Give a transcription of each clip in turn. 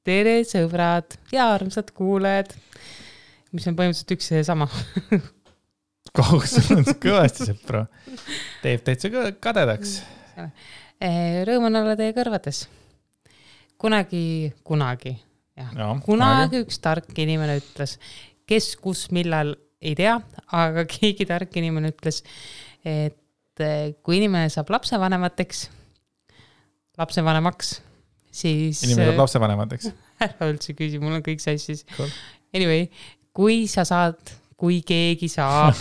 Tere sõbrad ja armsad kuulajad, mis on põhimõtteliselt üks ja sama. Kohus on kõvasti sõpra. Teeb täitsa kadedaks. Rõõm on olla teie kõrvades. Kunagi üks tark inimene ütles, kes kus millal ei tea, aga keegi tark inimene ütles, et kui inimene saab lapsevanemaks, siis... Inimene saab lapsevanemateks. Ära üldse küsi, mul on kõik sassis. Cool. Anyway, kui keegi saab,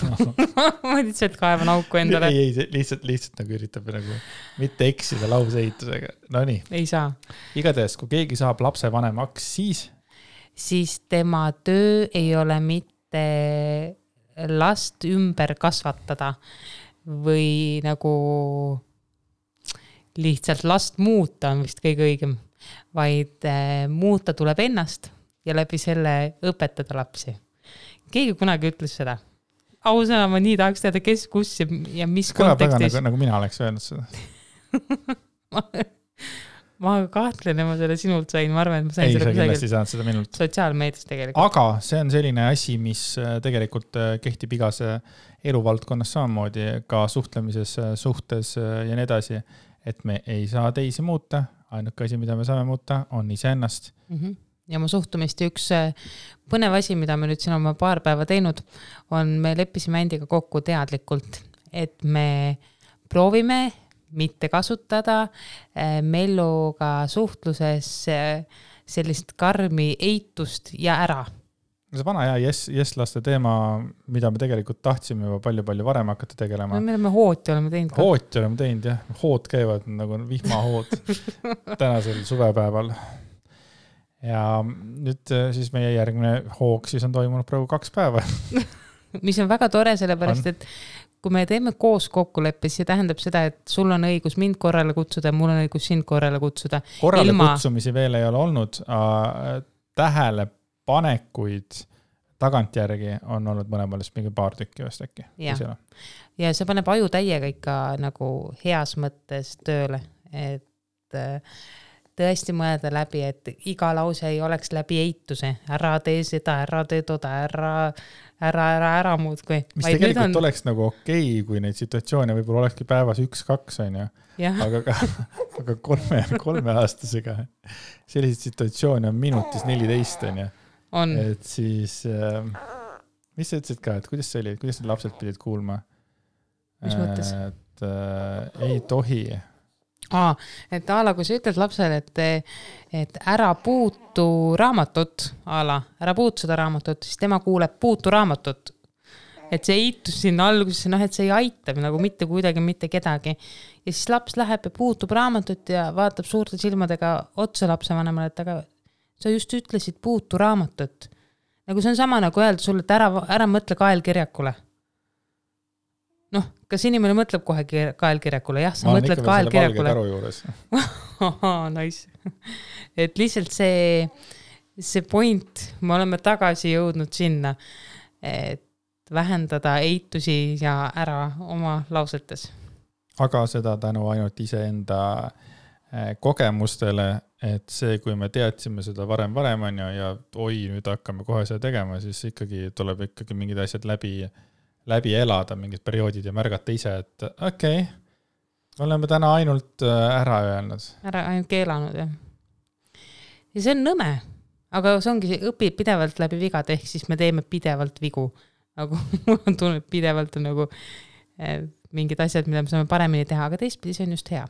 ma lihtsalt kaevan auku endale. Ei, lihtsalt nagu üritab nagu mitte eksida lauseehitusega. No nii. Ei saa. Igatahes, kui keegi saab lapsevanemaks, siis tema töö ei ole mitte last ümber kasvatada või nagu lihtsalt last muuta on vist kõige õigem, vaid muuta tuleb ennast ja läbi selle õpetada lapsi. Keegi kunagi ütles seda. Ausõna, ma nii tahaks teada, kes, kus ja mis kontekstis. Nagu mina oleks öelnud seda. ma kahtlen, ma selle sinult sain. Ma arvan, et ma sain ei, sa kindlasti saanud seda minult. Sotsiaalmeedias tegelikult. Aga see on selline asi, mis tegelikult kehtib igas eluvaldkonnas samamoodi, ka suhtlemises, suhtes ja nii edasi, et me ei saa teisi muuta. Ainuke asi, mida me saame muuta, on iseennast. Ja mu suhtumist üks põnev asi, mida me nüüd siin oma paar päeva teinud, on me leppisime endiga kokku teadlikult, et me proovime mitte kasutada Melluga suhtluses sellist karmi eitust ja ära. See vana yes-laste teema, mida me tegelikult tahtsime juba palju varem hakata tegelema. Me oleme hooti oleme teinud. Hooti oleme teinud, jah. Hood käivad nagu vihmahood tänasel suvepäeval. Ja nüüd siis meie järgmine hoog siis on toimunud praegu 2 päeva. Mis on väga tore, sellepärast, et kui me teeme koos kokkuleppes, see tähendab seda, et sul on õigus mind korrale kutsuda ja mul on õigus sind korrale kutsuda. Korrale kutsumisi veel ei ole olnud. Tähelepanekuid tagantjärgi on olnud mõlemalist mingi paar tükki vast äkki. Ja see paneb aju täiega ikka nagu heas mõttes tööle, et tõesti mõelda läbi, et iga lause ei oleks läbi eituse. Ära tee seda, ära tee toda, ära muud kui. Mis tegelikult oleks nagu okei, kui neid situatsioone võib-olla olekski päevas 1-2 on ju. Aga 3 aastasega selliseid situatsioone on minutis 14 on ju. Et siis, mis sa ütlesid ka, et kuidas see oli, kuidas need lapsed pidid kuulma? Mis mõttes? Et ei tohi. Et Aala, kui sa ütled lapsele, et ära puutu raamatut, Aala, ära puutu seda raamatut, siis tema kuuleb puutu raamatut. Et see eitus sinna algusesse, et see ei aita nagu mitte kuidagi, mitte kedagi. Ja siis laps läheb ja puutub raamatut ja vaatab suurte silmadega otsa lapsevanemale, et aga sa just ütlesid puutu raamatut. Nagu see on sama nagu öelda sulle, et ära mõtle kaelkirjakule. Kas inimene mõtleb kohe kaelkirjakule? Jah, sa mõtled kaelkirjakule. Nice. Et lihtsalt see point, me oleme tagasi jõudnud sinna, et vähendada eitusi ja ära oma lausetes. Aga seda tänu ainult iseenda kogemustele, et see, kui me teadsime seda varem on ja nüüd hakkame kohe seda tegema, siis ikkagi tuleb ikkagi mingid asjad läbi elada mingid perioodid ja märgata ise, et okei, oleme täna ainult ära öelnud. Ainult keelanud, jah. Ja see on nõme, aga see ongi õpib pidevalt läbi vigad, ehk siis me teeme pidevalt vigu. Nagu mul on tunne, pidevalt on nagu mingid asjad, mida me saame paremini teha, aga teistpidi see on just hea.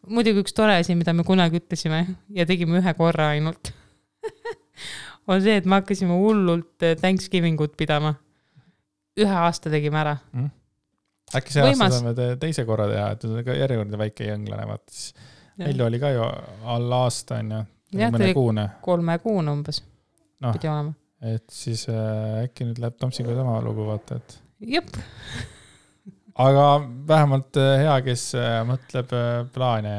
Muidugi üks tore asi, mida me kunagi ütlesime ja tegime 1 korra ainult, on see, et me hakkasime hullult Thanksgivingut pidama. 1 aasta tegime ära. Äkki see aasta saame teise korra teha, et on ka järjekordne väike jõnglane. Meil oli ka ju alla aasta on ju. Jah, tuli 3 kuune umbes. Pidi olema. Et siis äkki nüüd läheb Tomsiga sama lugu vaata, et... Jep. Aga vähemalt hea, kes mõtleb plaane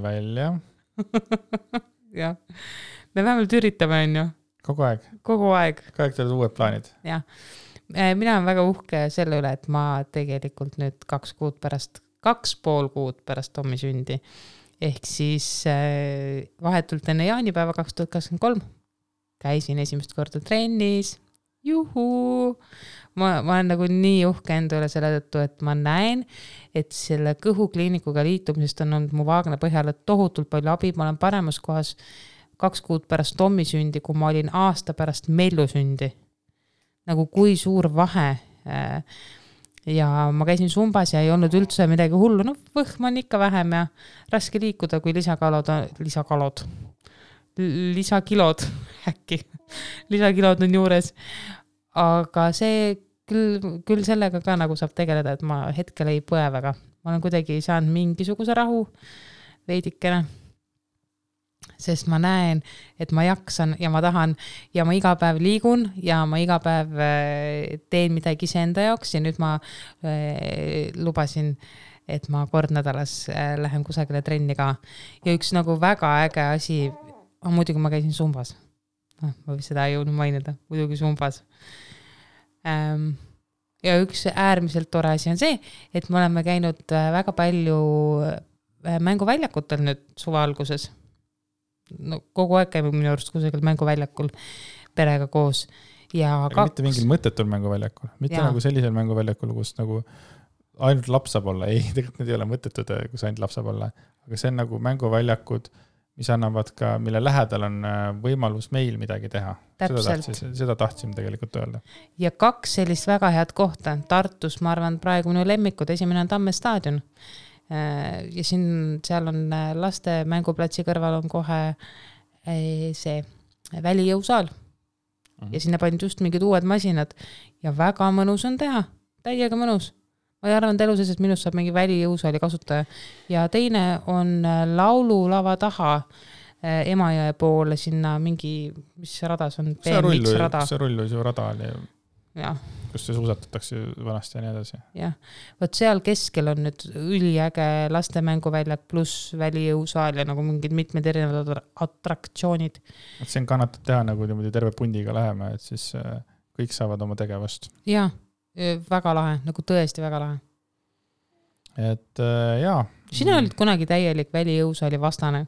välja. Jah. Me vähemalt üritame, on ju. Kogu aeg. Kogu aeg teed uued plaanid. Jah. Mina olen väga uhke selle üle, et ma tegelikult nüüd 2,5 kuud pärast Tommi sündi ehk siis vahetult enne jaanipäeva 2023 käisin esimest korda trennis. Juhuu! Ma olen nagu nii uhke enda üle selle tõttu, et ma näen, et selle kõhukliinikuga liitumisest on olnud mu vaagna põhjale tohutult palju abi. Ma olen paremas kohas 2 kuud pärast Tommi sündi, kui ma olin aasta pärast Mellu sündi. Nagu kui suur vahe. Ja ma käisin Zumbas ja ei olnud üldse midagi hullu. No võhm on ikka vähem ja raske liikuda, kui lisakilod äkki. Lisakilod on juures. Aga see küll sellega ka nagu saab tegeleda, et ma hetkel ei põe väga. Ma olen kuidagi saanud mingisuguse rahu veidikene. Sest ma näen, et ma jaksan ja ma tahan ja ma iga päev liigun ja ma iga päev teen midagi iseenda jaoks ja nüüd ma lubasin, et ma kord nädalas lähen kusagile trenni ka. Ja üks nagu väga äge asi, muidugi ma käisin Zumbas. Ma võin seda ei jõudnud mainida, muidugi Zumbas. Ja üks äärmiselt tore asi on see, et me oleme käinud väga palju mänguväljakutel nüüd suve alguses. No, kogu aeg käime minu arust kusagil mänguväljakul perega koos. Ja mitte mingil mõttetul mänguväljakul, mitte nagu sellisel mänguväljakul, kus nagu ainult laps saab olla. Ei, tegelikult need ei ole mõttetud, kus ainult laps saab olla. Aga see on nagu mänguväljakud, mis annavad ka, mille lähedal on võimalus meil midagi teha. Seda tahtsime tegelikult öelda. Ja 2 sellist väga head kohta. Tartus, ma arvan, praegu minu lemmikud. Esimene on Tamme staadion. Ja seal on laste mänguplatsi kõrval on kohe see välijõusaal. Ja sinna pandi just mingid uued masinad. Ja väga mõnus on teha. Täiega mõnus. Ma arvan, et eluses, et minust saab mingi välijõusaali kasutaja. Ja teine on laululava taha Emajõe poole sinna mingi, mis rada see on? BMX rada. See rulluisu rada oli, kus see suusatatakse vanasti ja nii edasi. Jah, võt seal keskel on nüüd üliäge lastemänguväljak pluss välijõusaal ja nagu mingid mitmed erinevad atraktsioonid. Et see on kannatab teha nagu terve pundiga läheme, et siis kõik saavad oma tegevust. Jah. Väga lahe, nagu tõesti väga lahe. Et jaa. Sina olid kunagi täielik välijõusaali vastane.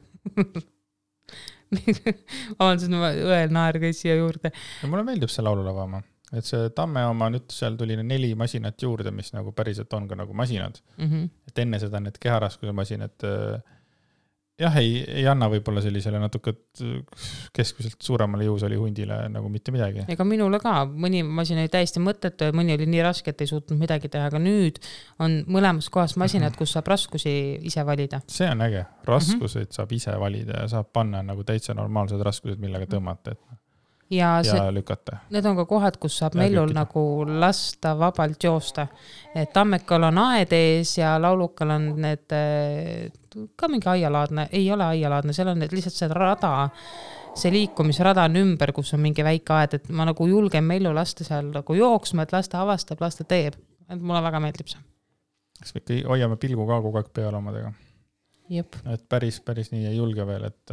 Avaldasin õel naer käis siia juurde. Ja mulle meeldib see laululava oma. Et see Tamme oma nüüd seal tuli 4 masinat juurde, mis nagu päriselt on ka nagu masinad. Et enne seda need keharaskuse masinad jah, ei anna võib-olla sellisele natuke keskmiselt suuremale jõusaali hundile nagu mitte midagi. Ega minule ka. Mõni masin oli täiesti mõttetu ja mõni oli nii raske, et ei suutnud midagi teha. Aga nüüd on mõlemas kohas masinad, kus saab raskusi ise valida. See on äge. Raskuseid saab ise valida ja saab panna nagu täitsa normaalsed raskused, millega tõmmata. Ja lükata. Need on ka kohad, kus saab Mellul nagu lasta vabalt joosta. Tammekal on aed ees ja laulukal on need ka mingi aialaadne, ei ole aialaadne, seal on lihtsalt see rada, see liikumisrada on ümber, kus on mingi väike aed, et ma nagu julgen Mellu lasta seal nagu jooksma, et lasta avastab, lasta teeb. Et mulle väga meeldib see. Kas me ikka hoiame pilgu ka kogu aeg peal omadega? Jep. Et päris nii ei julge veel, et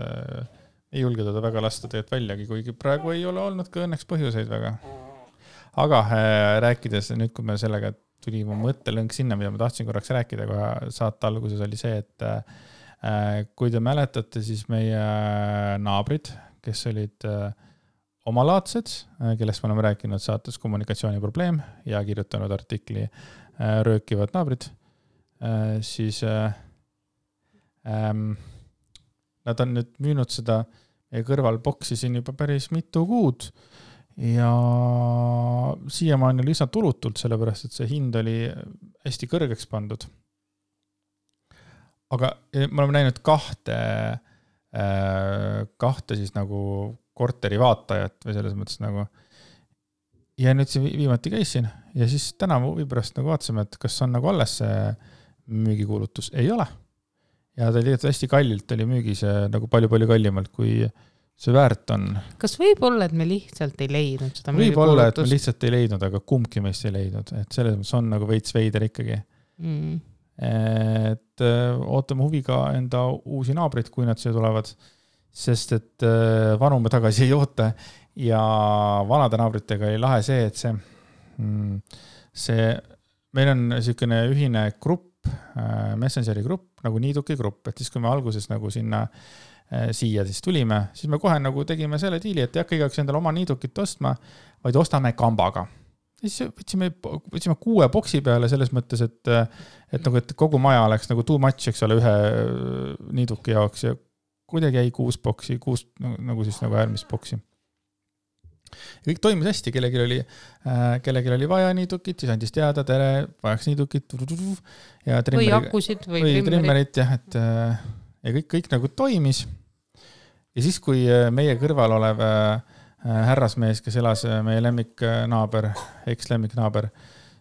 ei julge teda väga lasta teed väljagi, kuigi praegu ei ole olnud ka õnneks põhjuseid väga. Aga rääkides nüüd, kui me sellega tuli mu mõttelõng sinna, mida ma tahtsin korraks rääkida, kohe saate alguses oli see, et kui te mäletate, siis meie naabrid, kes olid omalaadsed, kellest me oleme rääkinud saates kommunikatsiooniprobleem ja kirjutanud artikli röökivad naabrid, siis nad on nüüd müünud seda kõrval boksi siin juba päris mitu kuud ja siiamaani oli üsna tulutult, sellepärast et see hind oli hästi kõrgeks pandud. Aga me oleme näinud kahte siis nagu korteri vaatajat või selles mõttes nagu ja nüüd see viimati käisin ja siis täna huvi pärast nagu vaatasime, et kas on nagu alles see müügikuulutus. Ei ole. Ja ta oli hästi kallilt, oli müügis nagu palju kallimalt, kui see väärt on. Kas võib olla, et me lihtsalt ei leidnud seda müügikuulutust? Võib olla, et me lihtsalt ei leidnud, aga kumbki meist ei leidnud. Et selles mõttes on nagu veits veider ikkagi. Et ootame huviga enda uusi naabrid, kui nad siia tulevad, sest et vanu me tagasi ei oota ja vanade naabritega ei lahe see, et see meil on niisugune ühine grupp, Messengeri grupp, nagu niiduki grupp, et siis kui me alguses nagu sinna siia siis tulime, siis me kohe nagu tegime selle diili, et ei hakka igaüks endale oma niidukit ostma, vaid ostame kambaga. Siis võtsime 6 boksi peale selles mõttes, et kogu maja oleks nagu too much, eks ole, ühe niiduki jaoks ja kuidagi jäi 6 boksi, 6 nagu siis nagu äärmist boksi. Ja kõik toimis hästi, kellelgi oli vaja niidukit, siis andis teada, tere, vajaks niidukit ja või akusid või trimmerit, jah, et ja kõik nagu toimis. Ja siis, kui meie kõrval olev härrasmees, kes elas meie lemmiknaaber, eks-lemmiknaaber,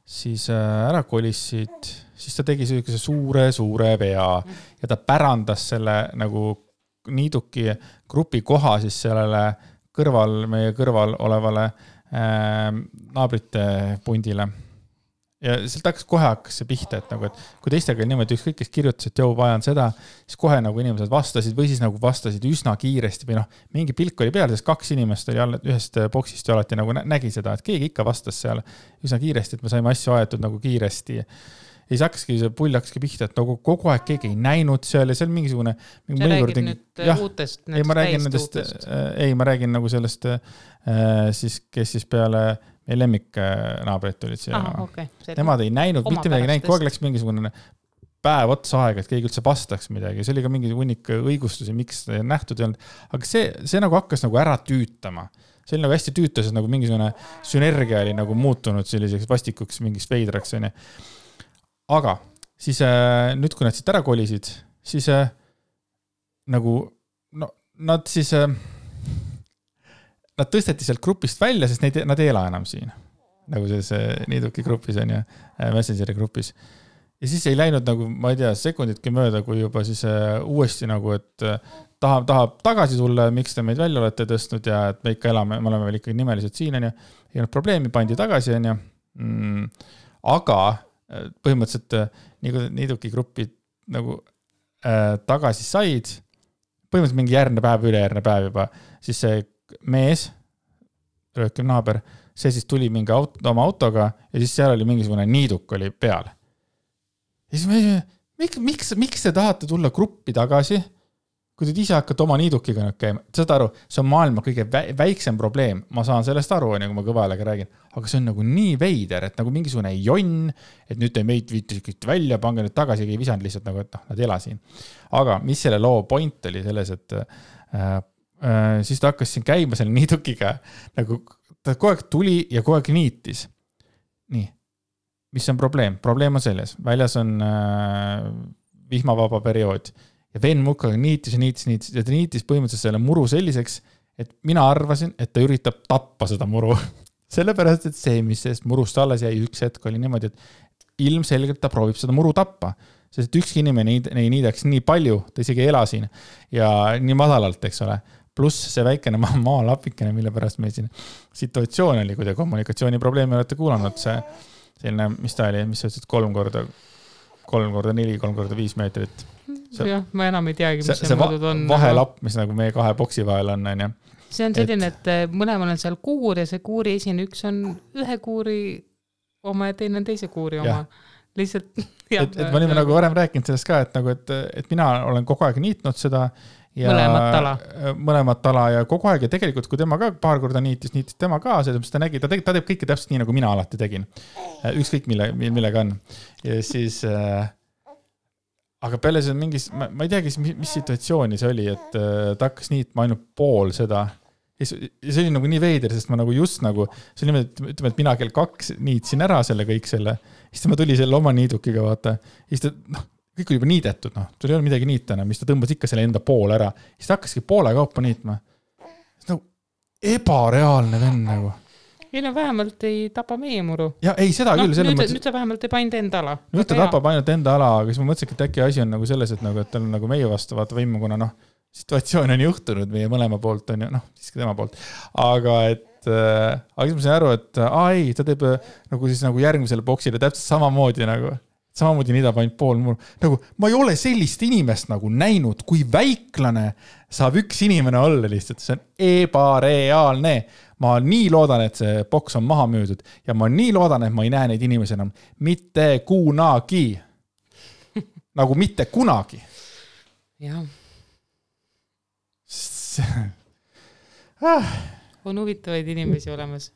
siis ära kolissid, siis ta tegi suure vea ja ta pärandas selle nagu niiduki grupi koha siis sellele meie kõrval olevale naabrite pundile. Ja sealt kohe hakkas see pihta, et kui teistega niimoodi ükskõik, kes kirjutas, et joo, vajan seda, siis kohe nagu inimesed vastasid või siis nagu vastasid üsna kiiresti või mingi pilk oli peal, sest 2 inimest oli ühest boksist ja alati nagu nägi seda, et keegi ikka vastas seal üsna kiiresti, et me saime asju aetud nagu kiiresti. Ja siis hakkaski see pull pihta, et nagu kogu aeg keegi ei näinud seal ja see on mingisugune... Sa räägid nüüd uutest, ma räägin nagu sellest siis, kes siis peale meie lemmiknaabrid olid siia. Okay. Nemad ei näinud, mitte midagi näinud, kogu aeg läks mingisugune päev otsa aega, et keegi üldse vastaks midagi. See oli ka mingi hunnik õigustusi, miks seda ei nähtud ei olnud. Aga see nagu hakkas nagu ära tüütama. See oli nagu hästi tüütas, et nagu mingisugune sünergia oli nagu muutunud selliseks vastikuks mingist veidraks. Aga siis nüüd, kui nad siit ära kolisid, siis nagu nad siis... Nad tõsteti sealt grupist välja, sest nad ei ela enam siin. Nagu selles niiduki grupis on ja Messengeri grupis. Ja siis ei läinud nagu, ma ei tea, sekunditki mööda, kui juba siis uuesti nagu, et tahab tagasi tulla, miks te meid välja olete tõstnud ja et me ikka elame, me oleme veel ikkagi nimelised siin on ja ei olnud probleemi, pandi tagasi on ja. Aga põhimõtteliselt niiduki grupid nagu tagasi said, põhimõtteliselt mingi ülejärgne päev juba, siis see mees, röökiv naaber, see siis tuli mingi oma autoga ja siis seal oli mingisugune niiduk oli peal. Ja siis miks te tahate tulla gruppi tagasi, kui te ise hakkate oma niidukiga käima? Saad aru, see on maailma kõige väiksem probleem. Ma saan sellest aru, kui ma kõvajalega räägin. Aga see on nagu nii veider, et nagu mingisugune jonn, et nüüd te meid viitisite välja, pange nüüd tagasi, ei visanud lihtsalt nagu, et nad ela siin. Aga mis selle loo point oli selles, et siis ta hakkas siin käima selle niidukiga, nagu ta kogu aeg tuli ja kogu aeg niitis. Nii, mis on probleem? Probleem on selles, väljas on vihmavaba periood ja Ven Mukaga niitis ja ta niitis põhimõtteliselt selle muru selliseks, et mina arvasin, et ta üritab tappa seda muru. Sellepärast, et see, mis sellest murust alles jäi üks hetk oli niimoodi, et ilmselgelt ta proovib seda muru tappa. Sest ükski inimene ei niidaks nii palju, ta isegi ei ela siin ja nii madalalt, eks ole. Pluss see väikene maalapikene, mille pärast meil siin situatsioon oli, kui te kommunikatsiooniprobleemi olete kuulanud, see selline, mis ta oli, mis sa ütlesid 3x4, 3x5 meetrit. Jah, ma enam ei teagi, mis see mõõdud on. Vahelapp, mis nagu meie 2 boksi vahel on. See on selline, et mõlemal on seal kuur ja see kuuri esine, üks on ühe kuuri oma ja teine on teise kuuri oma. Lihtsalt, et ma olime nagu varem rääkinud sellest ka, et mina olen kogu aeg niitnud seda ja mõlemat tala ja kogu aeg ja tegelikult, kui tema ka paar korda niitis tema ka, ta nägi, ta teeb kõike täpselt nii, nagu mina alati tegin. Ükskõik millega on. Ja siis, aga peale see mingis, ma ei teagi, mis situatsiooni see oli, et ta hakkas niitma ainult pool seda. Ja see oli nagu nii veider, sest ma nagu just nagu, see oli niimoodi, ütleme, et mina kell 2 niitsin ära selle kõik selle, siis ma tuli selle oma niidukiga, vaata, siis ta, kõik oli juba niidetud, sul ei ole midagi niitana, mis ta tõmbas ikka selle enda poole ära. Siis ta hakkaski poole kaupa niitma. See nagu ebareaalne venn nagu. Ei no vähemalt ei tapa meie muru. Ja ei, seda küll. Nüüd ta vähemalt ei painda enda ala. Nüüd ta tapab ainult enda ala, aga siis ma mõtlesin, et äkki asi on nagu selles, et ta on nagu meie vastu vaata võimu, kuna situatsioon on juhtunud meie mõlema poolt, on ju, siiski tema poolt. Aga siis ma sain aru, et ei, ta teeb nagu siis nagu järgmisele boksile täpselt samamoodi nagu. Samamoodi niidab ainult pool muru. Nagu, ma ei ole sellist inimest nagu näinud, kui väiklane saab üks inimene olla lihtsalt. See on ebareaalne. Ma nii loodan, et see boks on maha müüdud ja ma nii loodan, et ma ei näe neid inimesi enam mitte kunagi. nagu mitte kunagi. Jah. On huvitavaid inimesi olemas.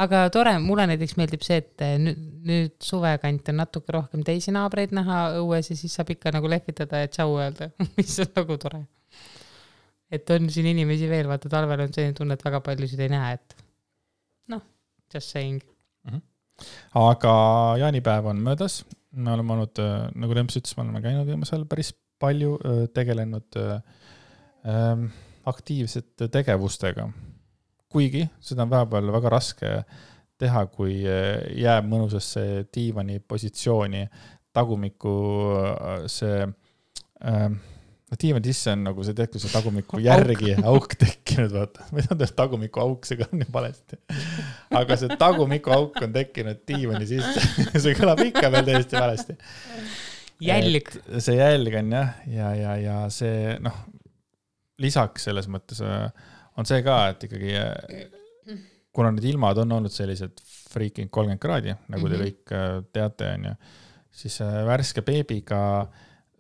Aga tore, mulle näiteks meeldib see, et nüüd suvekant on natuke rohkem teisi naabreid näha õues ja siis saab ikka nagu lehvitada ja tšau öelda, mis on nagu tore. Et on siin inimesi veel, vaata talvel on selline tunne, et väga paljusid ei näe, et noh, just saying. Aga jaanipäev on möödas. Me oleme olnud, nagu Lemps ütles, me oleme käinud viimasel päris palju tegelenud aktiivsete tegevustega. Kuigi seda on vahepeal väga raske teha, kui jääb mõnusasse diivani positsiooni tagumiku see diivani sisse on nagu see tehtud see tagumiku järgi auk tekkinud, vaata. Ma ei tea, tagumiku auk, see kõlab nii valesti. Aga see tagumiku auk on tekkinud diivani sisse. See kõlab ikka veel täiesti valesti. Jälg. See jälg on ja see, lisaks selles mõttes on see ka, et ikkagi kuna need ilmad on olnud sellised freaking 30 kraadi, nagu te kõik teate, on ju, siis värske beebiga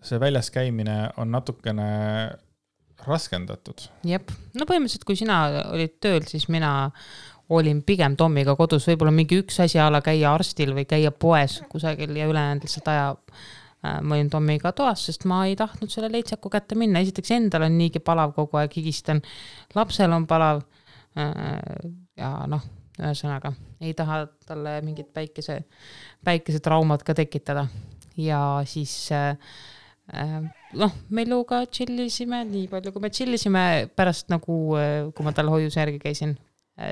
see väljas käimine on natukene raskendatud. Jep. No põhimõtteliselt, kui sina olid tööl, siis mina olin pigem Tommiga kodus, võib-olla mingi üks asi ala käia arstil või käia poes kusagil ja ülejäänud lihtsalt aja ma olin Tommiga toas, sest ma ei tahtnud selle leitsaku kätte minna. Esiteks endal on niigi palav kogu aeg, higistan. Lapsel on palav ja ühesõnaga ei taha talle mingit päikese traumad ka tekitada. Ja siis Melluga chillisime nii palju, kui me chillisime pärast nagu, kui ma tal hoiuse järgi käisin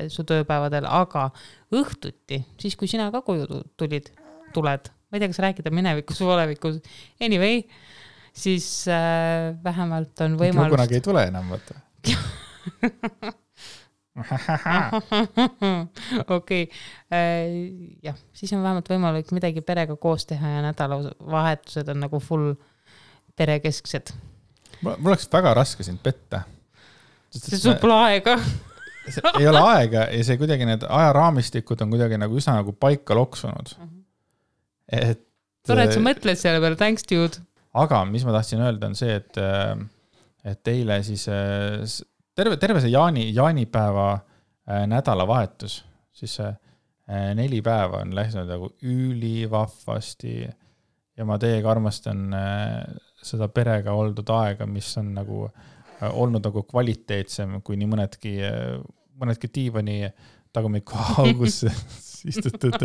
su tööpäevadel, aga õhtuti, siis kui sina ka koju tuled, ma ei tea, kas rääkida minevikus või olevikus, anyway, siis vähemalt on võimalust... Kunagi ei tule enam, vaata. Okei. Jah, siis on vähemalt võimalik midagi perega koos teha ja nädalavahetused on nagu full perekesksed. Mul oleks väga raske sind petta. See sul pole aega. Ei ole aega ja see kuidagi need ajaraamistikud on kuidagi nagu üsna nagu paika loksunud. Tore, et sa mõtled selle peale, thanks dude. Aga mis ma tahtsin öelda on see, et teile siis terve see jaanipäeva nädalavahetus, siis 4 päeva on läinud nagu ülivahvasti ja ma teiega armastan seda perega oldud aega, mis on nagu olnud nagu kvaliteetsem kui nii mõnedki diivani tagumiku augus istutud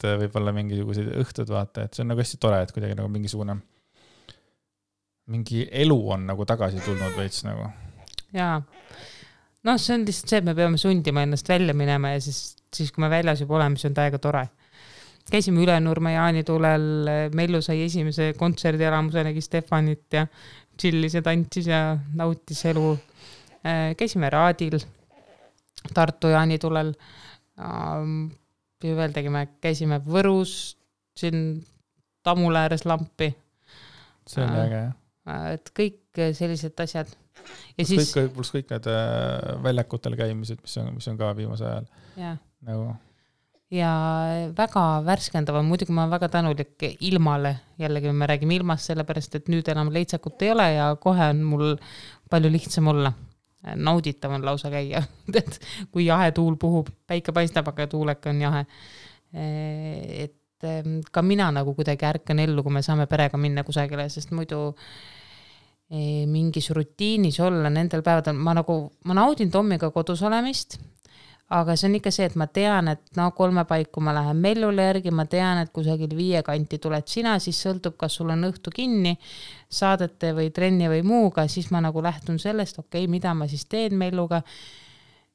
võib-olla mingisugused õhtud, vaata, et see on nagu hästi tore, et kuidagi nagu mingi elu on nagu tagasi tulnud veits nagu. Jaa. See on lihtsalt see, et me peame sundima ennast välja minema ja siis kui me väljas juba oleme, siis on täiega tore. Käisime Ülenurme jaanitulel, Mellu sai esimese kontserdialamuse, nägi Stefanit ja chillis ja tantsis ja nautis elu. Käisime Raadil, Tartu jaanitulel. Veel tegime, käisime Võrus, siin Tammule ääres lampi. See on äge, jah. Et kõik sellised asjad. Ja siis... Plus kõik need väljakutel käimised, mis on ka viimase ajal. Ja. Nagu... ja väga värskendav on, muidugi ma olen väga tänulik ilmale. Jällegi me räägime ilmast sellepärast, et nüüd enam leitsakut ei ole ja kohe on mul palju lihtsam olla. Nauditav on lausa käia, kui jahe tuul puhub, päike paistab, aga tuuleka on jahe. Et ka mina nagu kuidagi ärkan ellu, kui me saame perega minna kusagile, sest muidu mingis rutiinis olla nendel päevadel. Ma naudin Tommiga kodus olemist, aga see on ikka see, et ma tean, et 3 paiku ma lähen Mellule järgi, ma tean, et kusagil 5 kanti tuled sina, siis sõltub, kas sul on õhtu kinni saadete või trenni või muuga, siis ma nagu lähtun sellest, mida ma siis teen Melluga,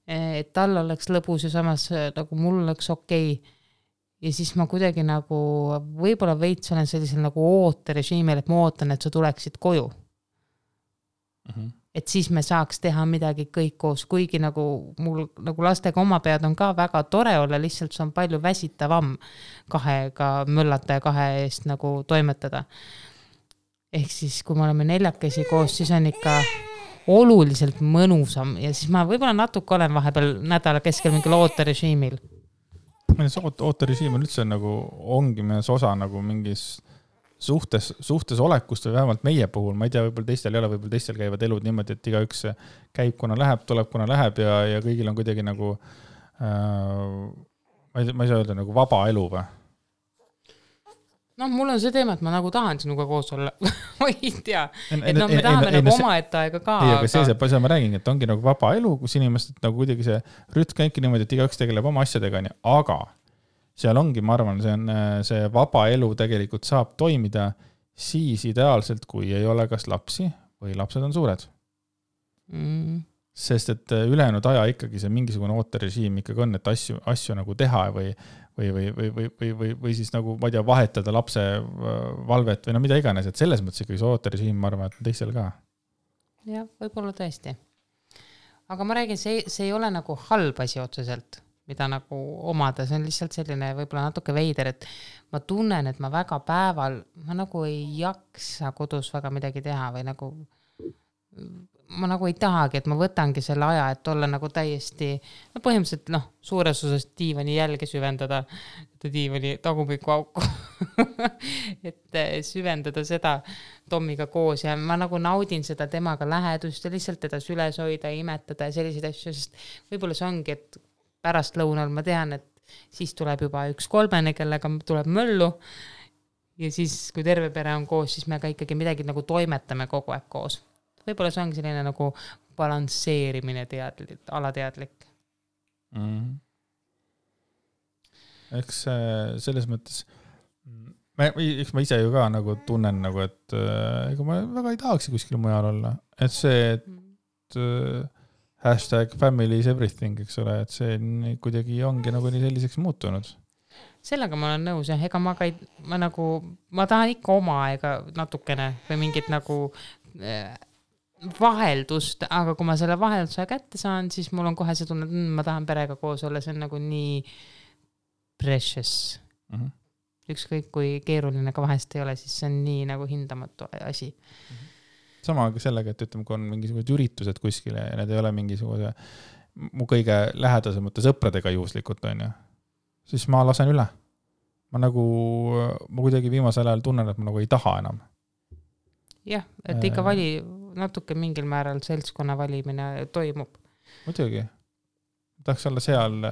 et tal oleks lõbus ja samas nagu mul oleks okei. Ja siis ma kuidagi nagu võib-olla veits olen sellisel nagu ooterežiimil, et ma ootan, et sa tuleksid koju. Et siis me saaks teha midagi kõik koos, kuigi nagu mul nagu lastega oma pead on ka väga tore olla, lihtsalt see on palju väsitavam 2 möllata ja 2 eest nagu toimetada. Ehk siis, kui me oleme 4 koos, siis on ikka oluliselt mõnusam ja siis ma võib-olla natuke olen vahepeal nädala keskel mingil ooterežiimil. Ooterežiim on üldse nagu ongi mees osa nagu mingis suhtes olekust või vähemalt meie puhul, ma ei tea, võib-olla teistel ei ole, võib-olla teistel käivad elud niimoodi, et igaüks käib, kuna läheb, tuleb, kuna läheb ja kõigil on kuidagi nagu, ma ei saa öelda, nagu vaba elu või? No mul on see teema, et ma nagu tahan sinuga koos olla. Ma ei tea. Et no me tahame nagu oma aega ka. Ei, aga see ma räägin, et ongi nagu vaba elu, kus inimesed nagu kuidagi see rütm käibki niimoodi, et igaüks tegeleb oma asjadega, aga seal ongi, ma arvan, see vaba elu tegelikult saab toimida siis ideaalselt, kui ei ole kas lapsi või lapsed on suured. Sest et ülejäänud aja ikkagi see mingisugune ooterežiim ikkagi on, et asju nagu teha või siis nagu, ma ei tea, vahetada lapse valvet või no mida iganes, et selles mõttes ikkagi see ooterežiim, ma arvan, et teistel ka. Jah, võib-olla tõesti. Aga ma räägin, see ei ole nagu halb asi otseselt, mida nagu omada, see on lihtsalt selline võib-olla natuke veider, et ma tunnen, et ma väga päeval, ma nagu ei jaksa kodus väga midagi teha või nagu ma nagu ei tahagi, et ma võtangi selle aja, et olla nagu täiesti, no põhimõtteliselt suures osas diivani jälge süvendada, diivani tagumiku auku, et süvendada seda Tommiga koos ja ma nagu naudin seda temaga lähedust ja lihtsalt teda süles hoida, imetada ja selliseid asju, sest võib-olla see ongi, et pärast lõunal ma tean, et siis tuleb juba üks 3, kellega tuleb möllu ja siis, kui terve pere on koos, siis me ka ikkagi midagi nagu toimetame kogu aeg koos. Võib-olla see ongi selline nagu balansseerimine alateadlik. Eks selles mõttes, eks ma ise ju ka nagu tunnen, nagu, et ega ma väga ei tahaks kuskil mujal olla. Et see, et #family is everything, eks ole, et see kuidagi ongi nagu nii selliseks muutunud. Sellega ma olen nõus, ega ma tahan ikka oma aega natukene või mingit nagu vaheldust, aga kui ma selle vahelduse kätte saan, siis mul on kohe see tunne, et ma tahan perega koos olla, see on nagu nii precious. Ükskõik kui keeruline ka vahest ei ole, siis see on nii nagu hindamatu asi. Sama ka sellega, et ütleme, kui on mingisugused üritused kuskile ja need ei ole mingisuguse mu kõige lähedasemate sõpradega juhuslikult, on ju, siis ma lasen üle. Ma kuidagi viimasel ajal tunnen, et ma nagu ei taha enam. Jah, et ikka natuke mingil määral seltskonna valimine toimub. Muidugi. Tahaks olla seal,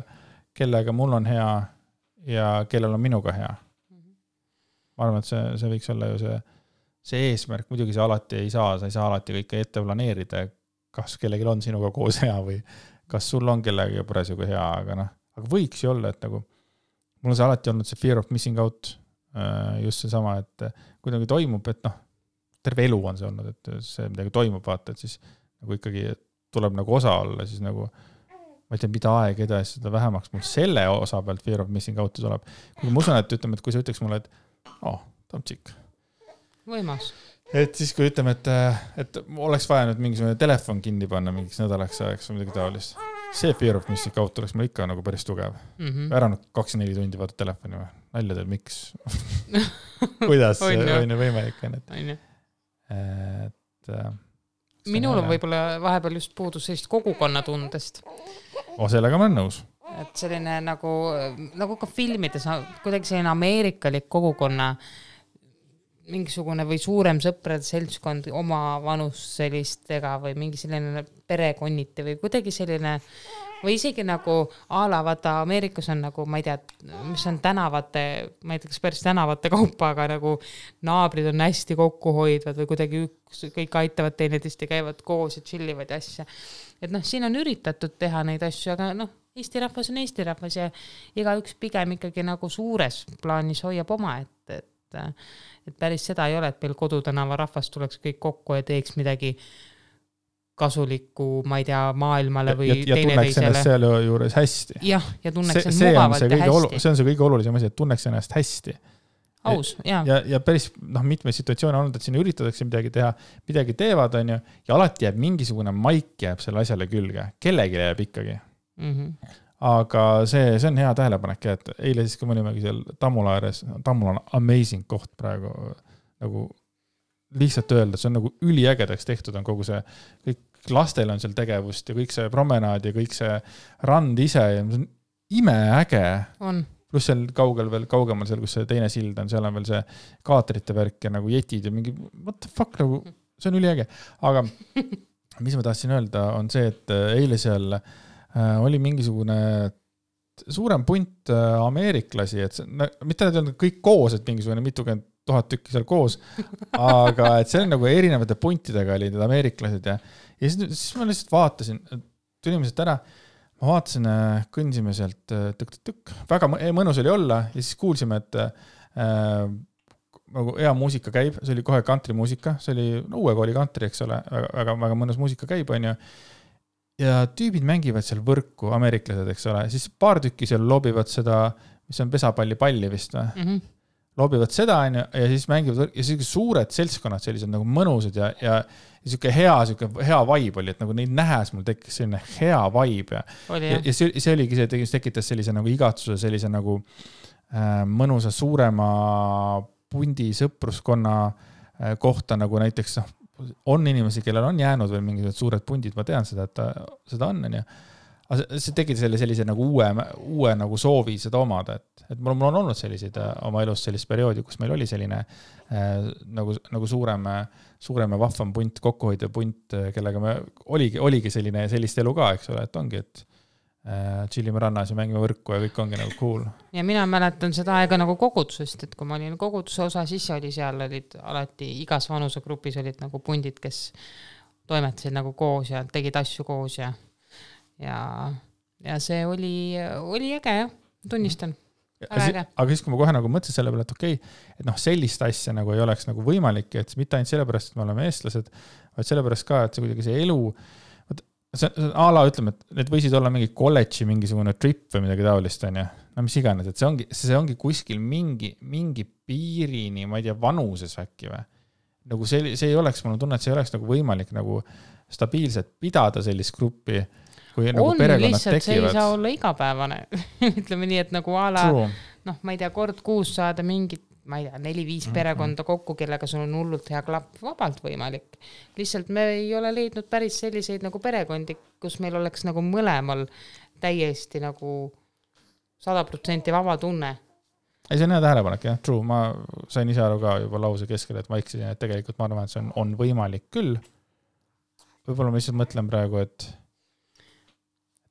kellega mul on hea ja kellel on minuga hea. Ma arvan, et see võiks olla ju see eesmärk. Muidugi see alati ei saa, sa ei saa alati kõike ette planeerida, kas kellelgi on sinuga koos hea või kas sul on kellega parasjagu hea, aga võiks ju olla, et nagu mul on see alati olnud see fear of missing out, just see sama, et kuidagi toimub, et terve elu on see olnud, et see midagi toimub, vaata, et siis nagu ikkagi tuleb nagu osa olla, siis nagu ma ei tea, mida aeg edasi, seda vähemaks mul selle osa pealt fear of missing out tuleb. Kui ma usun, et ütleme, et kui sa ütleks mulle, et Tomtšik. Võimas. Et siis kui ütleme, et oleks vaja nüüd mingisugune telefon kinni panna mingiks nädalaks ajaks või midagi taolist. See fear of missing out oleks mul ikka nagu päris tugev. Ära 24 tundi vaata telefoni või? Nalja teil, miks? Kuidas on võimalik? Minul on võib-olla vahepeal just puudus sellist kogukonnatundest. Sellega ma olen nõus. Et selline nagu ka filmides, kuidagi selline ameerikalik kogukonna mingisugune või suurem sõprade seltskond oma vanus sellistega või mingi selline perekonniti või kuidagi selline või isegi nagu vaata Ameerikas on nagu, ma ei tea, mis on tänavate, ma ei tea, kas päris tänavate kaupa, aga nagu naabrid on hästi kokkuhoidvad või kuidagi kõik aitavad teineteist ja käivad koos ja chillivad asja. Et siin on üritatud teha neid asju, aga Eesti rahvas on Eesti rahvas ja igaüks pigem ikkagi nagu suures plaanis hoiab oma, et päris seda ei ole, et meil Kodutänava rahvas tuleks kõik kokku ja teeks midagi kasulikku, ma ei tea, maailmale või ja tunneks ennast seal juures hästi. Ja tunneks ennast mugavalt ja hästi. See on see kõige olulisem asi, et tunneks ennast hästi. Aus, jah. Ja päris mitme situatsiooni on olnud, et siin üritatakse midagi teha, midagi teevad, on ju, ja alati jääb mingisugune maik jääb selle asjale külge. Kellegi jääb ikkagi. Aga see on hea tähelepanek, et eile siis, kui me olimegi seal Tammula ääres, Tammula on amazing koht praegu, nagu lihtsalt öelda, see on nagu üliägedaks tehtud on kogu see, kõik lastel on seal tegevust ja kõik see promenaad ja kõik see rand ise ja see on imeäge. pluss seal kaugemal seal, kus see teine sild on, seal on veel see kaatrite värk ja nagu jetid ja mingi, what the fuck, nagu, see on üliäge. Aga mis ma tahtsin öelda, on see, et eile seal oli mingisugune suurem punt ameeriklasi, et mitte need on kõik koos, et mingisugune mitukümmend 1000 tükki seal koos, aga et see on nagu erinevate puntidega olid need ameeriklased ja siis ma lihtsalt vaatasin, tulime sealt ära, ma vaatasin, kõndsime sealt tükk, väga mõnus oli olla ja siis kuulsime, et nagu hea muusika käib, see oli kohe country-muusika, see oli uue kooli country, eks ole, väga mõnus muusika käib, on ju. Ja tüübid mängivad seal võrku, ameeriklased, eks ole, siis paar tükki seal lobivad seda, mis on pesapalli vist või? Mm-hmm. Lobivad seda ja siis mängivad ja siis suured seltskonnad sellised nagu mõnusad ja siuke hea vibe oli, et nagu neid nähes mul tekkis selline hea vibe ja see oligi see, et tekitas sellise nagu igatsuse, sellise nagu mõnusa suurema pundi sõpruskonna kohta nagu näiteks on inimesi, kellel on jäänud veel mingisugused suured pundid, ma tean seda, et seda on ja see tekitas sellise nagu uue nagu soovi seda omada, et mul on olnud selliseid oma elus sellist perioodi, kus meil oli selline nagu suurem ja vahvam punt, kokkuhoidev punt, kellega me oligi sellist elu ka, eks ole, et ongi, et chillime rannas ja mängime võrku ja kõik ongi nagu cool. Ja mina mäletan seda aega nagu kogudusest, et kui ma olin koguduse osa, siis oli seal olid alati igas vanusegrupis olid nagu pundid, kes toimetasid nagu koos ja tegid asju koos ja see oli äge, jah, tunnistan. Aga siis, kui ma kohe nagu mõtlesin selle peale, et okei, et sellist asja nagu ei oleks nagu võimalik, et mitte ainult sellepärast, et me oleme eestlased, vaid sellepärast ka, et see kuidagi see elu, see ala ütleme, et need võisid olla mingi kolledži mingisugune trip või midagi taolist, on ju. No mis iganes, et see ongi kuskil mingi piirini, ma ei tea, vanuses äkki või. Nagu see ei oleks, mul on tunne, et see ei oleks nagu võimalik nagu stabiilselt pidada sellist gruppi, kui nagu perekonnad lihtsalt, tekivad. See ei saa olla igapäevane. Ütleme nii, et nagu ala, ma ei tea, kord kuus saada mingit, ma ei tea, 4-5 perekonda kokku, kellega sul on hullult hea klapp, vabalt võimalik. Lihtsalt me ei ole leidnud päris selliseid nagu perekondi, kus meil oleks nagu mõlemal täiesti nagu 100% vaba tunne. Ei, see on hea tähelepanek, jah, true. Ma sain ise aru ka juba lause keskel, et ma eksisin, et tegelikult ma arvan, et see on võimalik küll. Võib-olla ma lihtsalt mõtlen praegu, et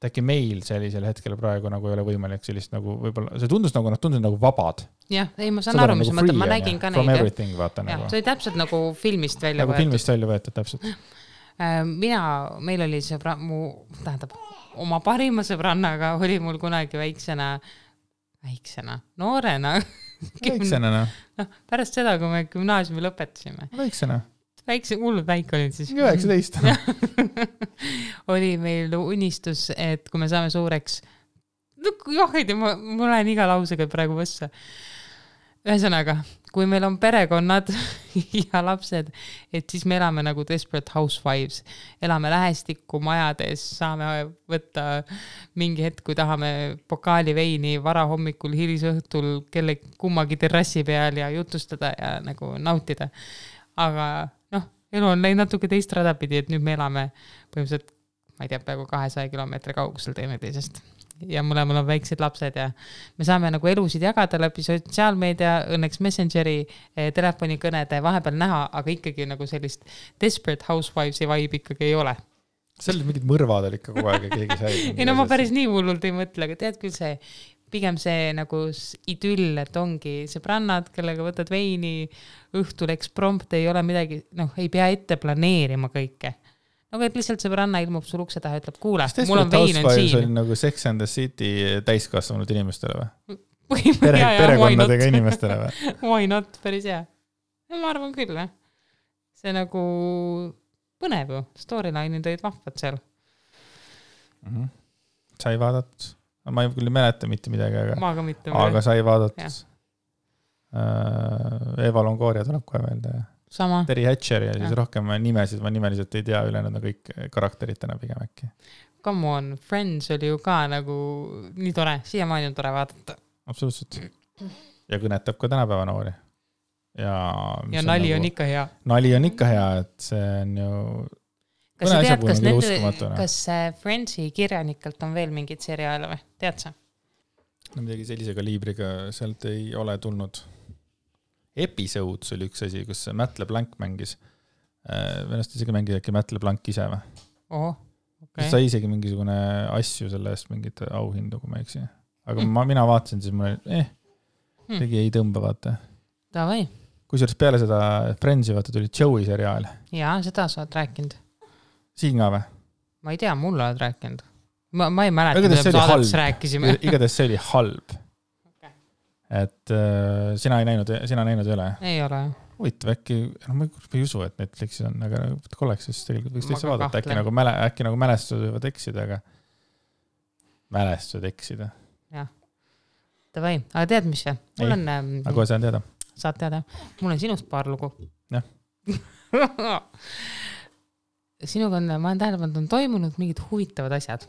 äkki meil sellisel hetkel praegu nagu ei ole võimalik sellist nagu võib-olla, see tundus nagu vabad. Jah, ei, ma saan aru, mis mõtlen, ma nägin ka neid. From everything, vaata nagu. See oli täpselt nagu filmist välja võetud. Nagu filmist välja võetud, täpselt. Meil oli oma parima sõbrannaga oli mul kunagi väiksena, noorena. Väiksena, no. Pärast seda, kui me gümnaasiumi lõpetasime. Väiksena. Hullud väike olid siis. 19. oli meil unistus, et kui me saame suureks, ma lähen iga lausega praegu võssa. Ühesõnaga, kui meil on perekonnad ja lapsed, et siis me elame nagu Desperate Housewives. Elame lähestikku majades, saame võtta mingi hetk, kui tahame pokaali veini varahommikul, hilisõhtul kelle kummagi terrassi peal ja jutustada ja nagu nautida. Aga elu on läinud natuke teist radapidi, et nüüd me elame põhimõtteliselt, ma ei tea, peaaegu 200 kilomeetri kaugusel teineteisest. Ja mõlemal on väiksed lapsed ja me saame nagu elusid jagada läbi sotsiaalmeedia, õnneks Messengeri, telefonikõnede vahepeal näha, aga ikkagi nagu sellist Desperate Housewivesi vibe ikkagi ei ole. Seal mingid mõrvad oli ikka kogu aeg ja keegi sai. Ei, no ma päris nii hullult ei mõtle, aga tead küll see, pigem see nagu idüll, et ongi sõbrannad, kellega võtad veini, õhtul eksprompt, ei ole midagi, ei pea ette planeerima kõike. Nagu et lihtsalt sõbranna ilmub sul ukse taha, ütleb, kuule, mul on vein on siin. Oli nagu Sex and the City täiskasvanud inimestele või? Perekonnadega inimestele või? Why not, päris hea. Ma arvan küll, see nagu põnev ju, storyline'id olid vahvad seal. Sai vaadatud? Ma ei küll mäleta mitte midagi, aga sai vaadatud. Eva Longoria tuleb kohe meelde. Sama. Terry Hatcher ja siis rohkem nimesid, ma nimeliselt ei tea, ülejäänud on kõik karakteritena pigem äkki. Come on, Friends oli ju ka nagu nii tore, siiamaani on tore vaadata. Absoluutselt. Ja kõnetab ka tänapäeva noori. Ja nali on ikka hea. Nali on ikka hea, et see on ju... Kas sa tead, kas Friendsi kirjanikelt on veel mingid seriaale või? Tead sa? no midagi sellise kaliibriga sealt ei ole tulnud. Episodes oli üks asi, kus Matt LeBlanc mängis. Venast isegi mängis äkki Matt LeBlanc ise või? Okay. Sai isegi mingisugune asju selle eest mingit auhindu, kui ma eksi. Aga mina vaatasin, siis mul tegi ei tõmba, vaata. Davai. Kusjuures peale seda Friendsi vaata tuli Joey seriaal. Jaa, seda sa oled rääkinud. Siin ka või? Ma ei tea, mulle oled rääkinud. Ma ei mäleta, mida saadetus rääkisime. Igatahes see oli halb. Okay. Et sina näinud ei ole? Ei ole. Huvitav, äkki, ma ei usu, et Netflixis on, aga kolleks, siis tegelikult võiks teisse vaadata. Äkki nagu mälestused võivad eksida, aga mälestused eksida. Jah. Davai. Aga tead, mis see? Mul on... Aga kohe saan teada. Saad teada. Mul on sinust paar lugu. Jah. Sinuga ma olen tähelepanu, on toimunud mingid huvitavad asjad.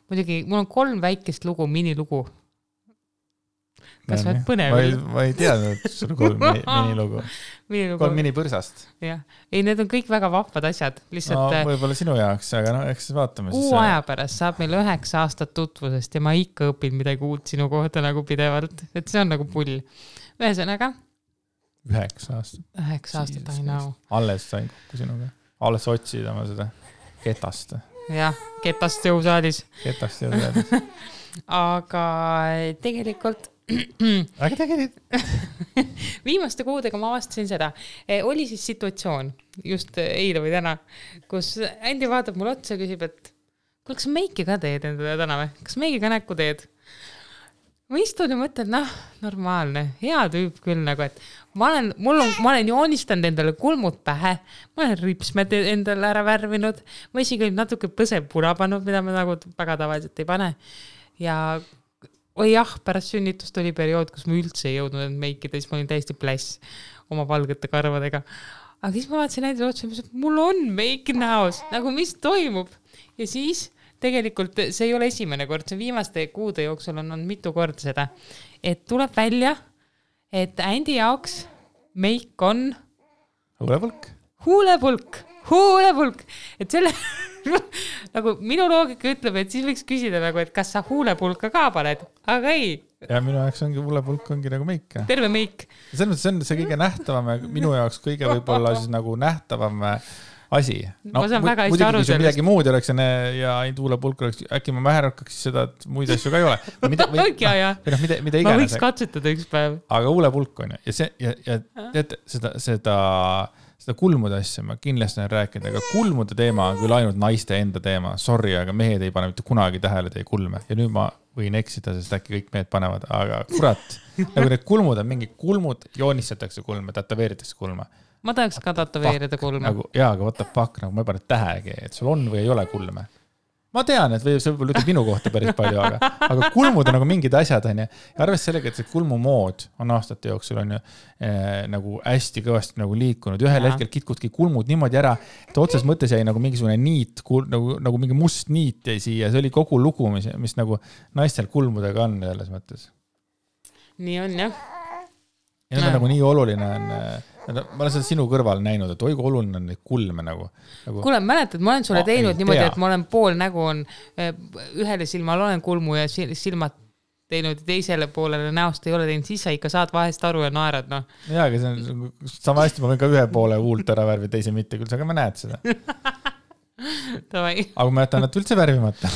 Muidugi, mul on 3 väikest lugu, minilugu. Kas võid põnev? Ma ei teadnud, et sul 3 minilugu. 3 minipõrsast. Jah. Ei, need on kõik väga vahvad asjad. Lihtsalt, no, võib-olla sinu jaoks, aga eks vaatame. Kuu aja pärast saab meil 9 aastat tutvusest ja ma ikka õpin midagi uut sinu kohta nagu pidevalt. Et see on nagu pull. Ühesõnaga? 9 aastat. 9 aastat, I know. Alles sain kokku sinuga. Alles otsid oma seda ketast. Jah, ketast jõusaalis. Ketast jõusaalis. Aga tegelikult viimaste kuudega ma avastasin seda. Oli siis situatsioon, just eile või täna, kus Andi vaatab mul otsa ja küsib, et kuule, kas meiki ka teed endale täna või? Kas meiki ka näkku teed? Ma istun ja mõtlen, normaalne, hea tüüp küll nagu, et ma olen joonistanud endale kulmud pähe, ma olen ripsmed endale ära värvinud, ma isegi natuke põseb puna pannud, mida ma nagu väga tavaliselt ei pane. Ja pärast sünnitust oli periood, kus ma üldse ei jõudnud end meikida, siis ma olin täiesti pläss oma valgete karvadega. Aga siis ma vaatasin näidele otsa, et mul on meik näos, nagu mis toimub. Ja siis tegelikult see ei ole esimene kord, see viimaste kuude jooksul on mitu korda seda, et tuleb välja, et Andi jaoks meik on huulepulk. Et selle nagu minu loogika ütleb, et siis võiks küsida nagu, et kas sa huulepulka ka paned, aga ei. Ja minu jaoks huulepulk ongi nagu meik. Terve meik. See on see kõige nähtavam, minu jaoks kõige võib-olla siis nagu nähtavam asi. Ma saan väga hästi aru sellest. Midagi muud oleks ja ainult huulepulk oleks, äkki ma väherakkaks seda, et muid asju ka ei ole. Mida iganes. Ma võiks katsetada üks päev. Aga huulepulk on ja tead, seda kulmude asja ma kindlasti olen rääkinud, aga kulmude teema on küll ainult naiste enda teema. Sorry, aga mehed ei pane mitte kunagi tähele teie kulme. Ja nüüd ma võin eksida, sest äkki kõik mehed panevad, aga kurat, nagu need kulmud on mingi kulmud, joonistatakse kulme, tätoveeritakse kulme. Ma tahaks ka tätoveerida kulme. Nagu, jaa, aga what the fuck, nagu ma ei pane tähegi, et sul on või ei ole kulme. Ma tean, et see võib-olla ütleb minu kohta päris palju, aga kulmud on nagu mingid asjad, on ja arvest sellega, et see kulmumood on aastate jooksul on ju nagu hästi kõvasti nagu liikunud. Ühel hetkel kitkudki kulmud niimoodi ära, et otsas mõttes jäi nagu mingisugune niit, nagu mingi must niit jäi siia. See oli kogu lugu, mis nagu naistel kulmudega on selles mõttes. Nii on, jah. Ja need on nagu nii oluline on... Ma olen seda sinu kõrval näinud, et oigu oluline on neid kulme nagu. Kuule, mäletad, ma olen sulle teinud niimoodi, et ma olen pool nägu on, ühele silmal olen kulmu ja silmad teinud ja teisele poolele näost ei ole teinud, siis sa ikka saad vahest aru ja naerad, noh. Jaa, aga see on sama hästi, ma võin ka ühe poole huult ära värvi, teise mitte küll, aga ma näed seda. Aga ma jätan nad üldse värvimata.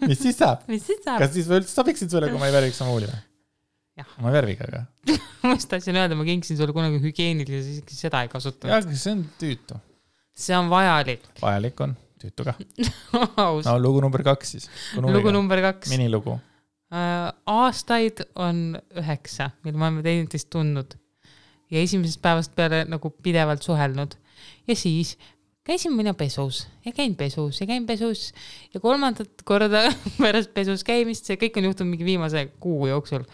Mis siis saab? Kas siis üldse sobiksid sulle, kui ma ei värviks oma huuli või? Ma värviga, aga. Ma just tahtsin öelda, ma kingsin sulle kunagi hügieenilise, siis seda ei kasutanud. Jaa, aga see on tüütu. See on vajalik. Vajalik on, tüütu ka. No, lugu number 2 siis. Lugu number 2. Minilugu. Aastaid on 9, mil ma olen teineteist tundnud. Ja esimesest päevast peale nagu pidevalt suhelnud. Ja siis käisin mina pesus ja käin pesus ja 3. korda pärast pesus käimist, see kõik on juhtunud mingi viimase kuu jooksul.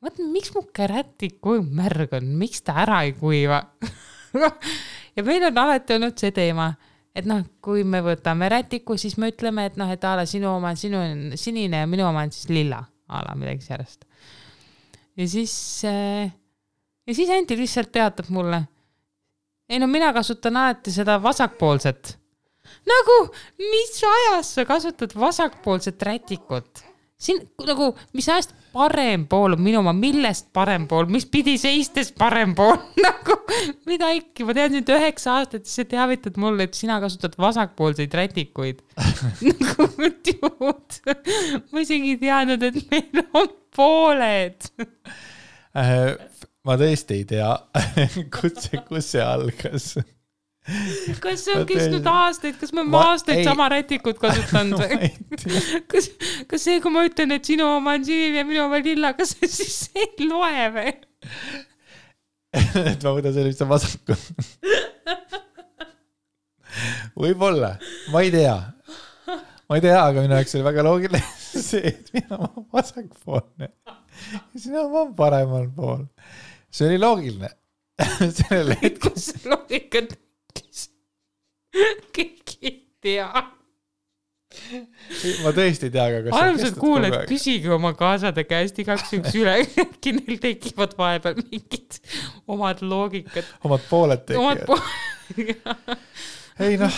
Mõtlen, miks mu kärätik kui märg on, miks ta ära ei kuiva? Ja meil on alati olnud see teema, et kui me võtame rätiku, siis me ütleme, et et ala sinu oma on sinine ja minu oma on siis lilla, ala midagi sellest. Ja siis Anti lihtsalt teatab mulle, mina kasutan alati seda vasakpoolset. Nagu, mis ajas sa kasutad vasakpoolset rätikut? siin nagu, mis ajast parem pool on minu oma, millest parem pool, mis pidi seistes parem pool, nagu mida ikka, ma tean sind 9 aastat, siis sa teavitad mulle, et sina kasutad vasakpoolseid rätikuid. Nagu tjuud, ma isegi ei teadnud, et meil on pooled. Ma tõesti ei tea, kus see algas. Kas see on kestnud aastaid, kas me aastaid sama rätikut kasutanud? Kas see, kui ma ütlen, et sinu oma on sinine ja minu oma lilla, kas see siis ei loe või? Et ma võtan selle, mis on vasakul. Võib-olla, ma ei tea, aga minu jaoks oli väga loogiline see, et mina olen vasakpoolne ja sina olen paremal pool. See oli loogiline. Kus see loogika kõik ei tea. Ma tõesti ei tea, aga kas armsad kuuled, küsige oma kaasade käest igaks üks üle, äkki neil tekivad vahepeal mingid omad loogikad. Omad pooled tekivad. Ei noh,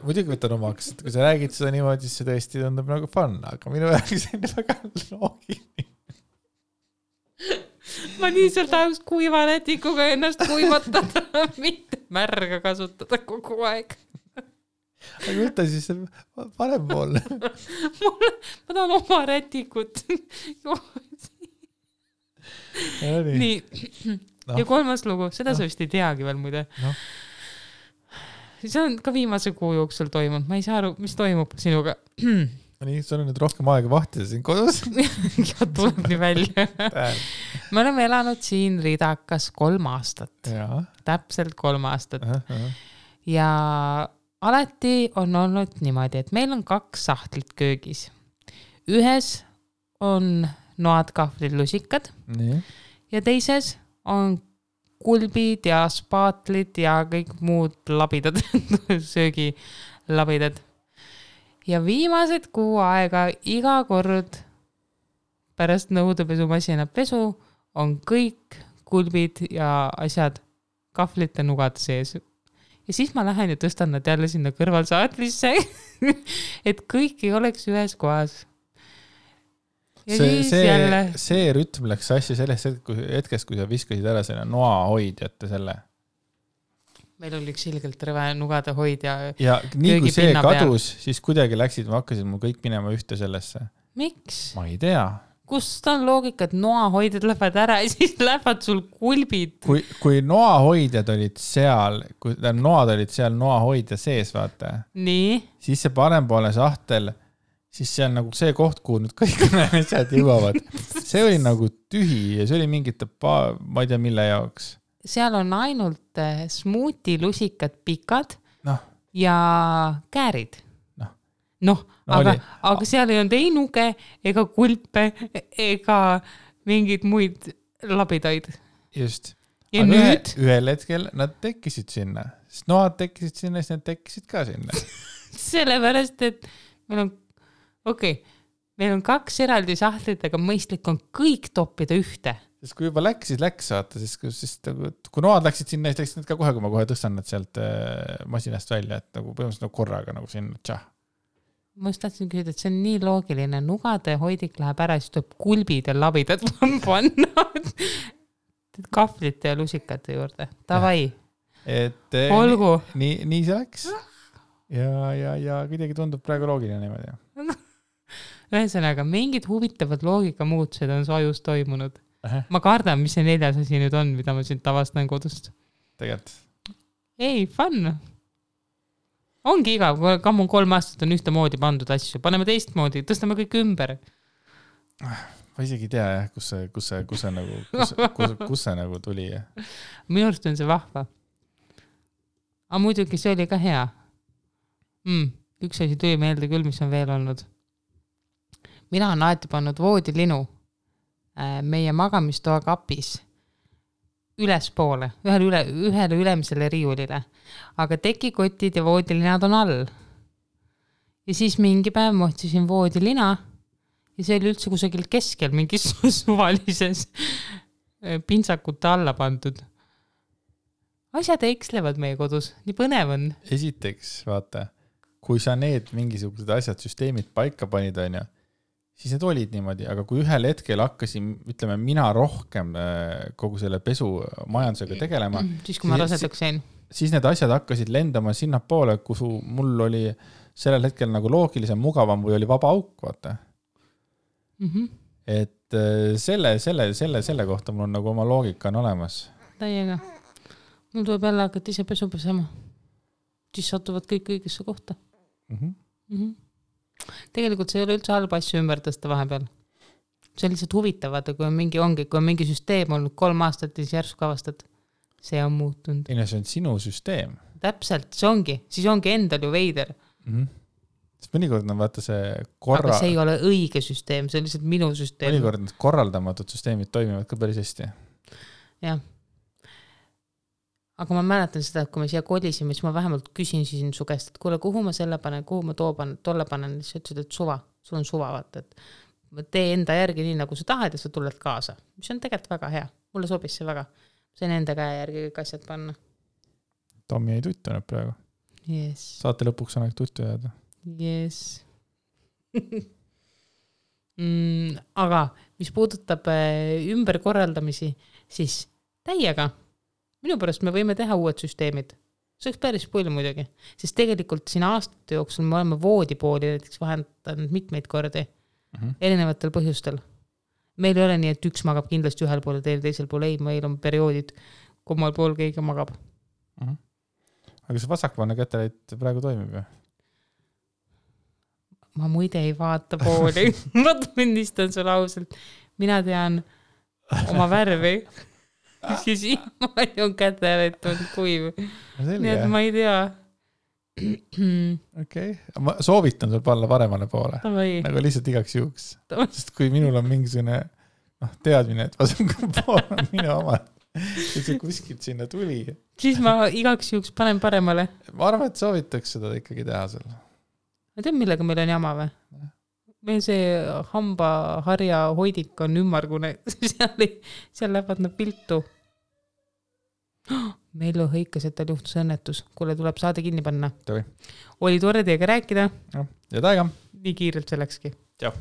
muidugi võtan omaks, et kui sa räägid seda niimoodi, siis see tõesti tundub nagu fun, aga minu jaoks on väga loogiline. Ma lihtsalt tahaks kuiva rätikuga ennast kuivatada, mitte märga kasutada kogu aeg. Aga võtta siis parem pool. Ma tahan oma rätikut. Nii. Ja 3. lugu, seda sa vist ei teagi veel muide. See on ka viimase kuu jooksul toimunud. Ma ei saa aru, mis toimub sinuga. Nii, sul on nüüd rohkem aega vahtida siin kodus. Ja tuleb nii välja. Me oleme elanud siin Ridakas 3 aastat. Ja. Täpselt 3 aastat. Ja alati on olnud niimoodi, et meil on 2 sahtlit köögis. Ühes on noad, kahvlid, lusikad. Nii. Ja teises on kulbid ja spaatlid ja kõik muud labidad, söögilabidad. Ja viimased kuu aega iga kord pärast nõudepesumasina pesu on kõik kulbid ja asjad kahvlite nugad sees. Ja siis ma lähen ja tõstan nad jälle sinna kõrvalsaatlisse, et kõik ei oleks ühes kohas. Ja see rütm läks asja sellest hetkest, kui sa viskasid ära selle noahoidjate selle. Meil oli üks ilgelt rõve nugade hoid ja nii kui see kadus, siis kuidagi läksid, ma hakkasin mul kõik minema ühte sellesse. Miks? Ma ei tea. Kust on loogika, et noahoidjad lähevad ära ja siis lähevad sul kulbid? Kui noahoidjad olid seal, kui noad olid seal noahoidja sees, vaata. Nii? Siis see parempoole sahtel, siis see on nagu see koht, kuhu nüüd kõik asjad jõuavad. See oli nagu tühi ja see oli mingite, ma ei tea mille jaoks. Seal on ainult smuuti lusikad pikad ja käärid. Aga seal ei olnud ei nuge ega kulpe ega mingid muid labidaid. Just. Ja aga nüüd? Ühel hetkel nad tekkisid sinna. Sest noad tekkisid sinna, siis nad tekkisid ka sinna. Sellepärast, et meil on, meil on 2 eraldi sahtlit, aga mõistlik on kõik toppida ühte. Sest kui juba läks, saata, siis kui noad läksid sinna, siis läksid need ka kohe, kui ma kohe tõstan nad sealt masinast välja, et nagu põhimõtteliselt nagu korraga nagu sinna tšah. Ma just tahtsin küsida, et see on nii loogiline. Nugade hoidik läheb ära, siis tuleb kulbid ja labidad panna kahvlite ja lusikate juurde. Tavai. Olgu. Nii see läks. Ja kuidagi tundub praegu loogiline niimoodi. Ühesõnaga, mingid huvitavad loogika muutused on su ajus toimunud. Ma kardan, mis see 4. asi nüüd on, mida ma siin tavastan kodust. Tegelikult. Ei, fun. Ongi igav, kui 3 aastat on ühte moodi pandud asju. Paneme teistmoodi, tõstame kõik ümber. Ma isegi ei tea, kus see nagu tuli. Minu arust on see vahva. Aga muidugi see oli ka hea. Üks asi tuli meelde küll, mis on veel olnud. Mina olen alati pannud voodilinu meie magamistoa kapis ülespoole, ühele ülemisele riiulile, aga tekikotid ja voodilinad on all. Ja siis mingi päev ma otsisin voodilina ja see oli üldse kusagil keskel mingis suvalises pintsakute alla pandud. Asjad ekslevad meie kodus, nii põnev on. Esiteks, vaata, kui sa need mingisugused asjad, süsteemid paika panid, on ju, siis need olid niimoodi, aga kui ühel hetkel hakkasin, ütleme, mina rohkem kogu selle pesumajandusega tegelema, siis kui ma rasedaks jäin, siis need asjad hakkasid lendama sinna poole, kus mul oli sellel hetkel nagu loogilisem, mugavam või oli vaba auk, vaata. Et selle kohta mul on nagu oma loogika on olemas. Täiega. Mul tuleb jälle hakata ise pesu pesema. Siis satuvad kõik õigesse kohta. Tegelikult see ei ole üldse halba asju ümber tõsta vahepeal. See on lihtsalt huvitavad, kui on mingi süsteem olnud 3 aastat ja siis järsku avastad. See on muutunud. See on sinu süsteem. Täpselt, see ongi. Siis ongi endal ju veider. Sest mõnikord on vaata see Aga see ei ole õige süsteem, see on lihtsalt minu süsteem. Mõnikord need korraldamatud süsteemid toimivad ka päris hästi. Jah. Aga ma mäletan seda, et kui me siia kolisime, siis ma vähemalt küsin siin su käest, et kuule, kuhu ma selle panen, kuhu ma tolle panen, siis ütlesid, et suva, sul on suva, vaata, et tee enda järgi nii, nagu sa tahad ja sa tuled kaasa. Mis on tegelikult väga hea, mulle sobis see väga. See on enda käe järgi kõik asjad panna. Tommi ei tuttunud praegu. Yes. Saate lõpuks on aeg tuttu jääda. Yes. Aga mis puudutab ümberkorraldamisi, siis täiega. Minu pärast me võime teha uued süsteemid. See oleks päris palju muidugi. Sest tegelikult siin aastate jooksul me oleme voodipooli näiteks vahendanud mitmeid kordi erinevatel põhjustel. Meil ei ole nii, et üks magab kindlasti ühel pool ja teisel pool ei, meil on perioodid, kummal pool keegi magab. Aga see vasakpoolne käteleit praegu toimib ju? Ma muide ei vaata pooli. Ma tunnistan sulle ausalt. Mina tean oma värvi. Siis siiamaani on käteleit on kuiv. Nii et ma ei tea. Okei. Ma soovitan sul panna paremale poole. Nagu lihtsalt igaks juhuks. Sest kui minul on mingisugune teadmine, et vasakul pool on minu oma, et see kuskilt sinna tuli. Siis ma igaks juhuks panen paremale. Ma arvan, et soovitaks seda ikkagi teha seal. Ma tean, millega meil on jama või? Meil see hambaharja hoidik on ümmargune. Seal lähevad nad piltu. Meil hõikas, et tal juhtus õnnetus. Kuule, tuleb saade kinni panna. Tõi. Oli tore teiega rääkida. Ja taega. Nii kiirelt see läkski. Tšau.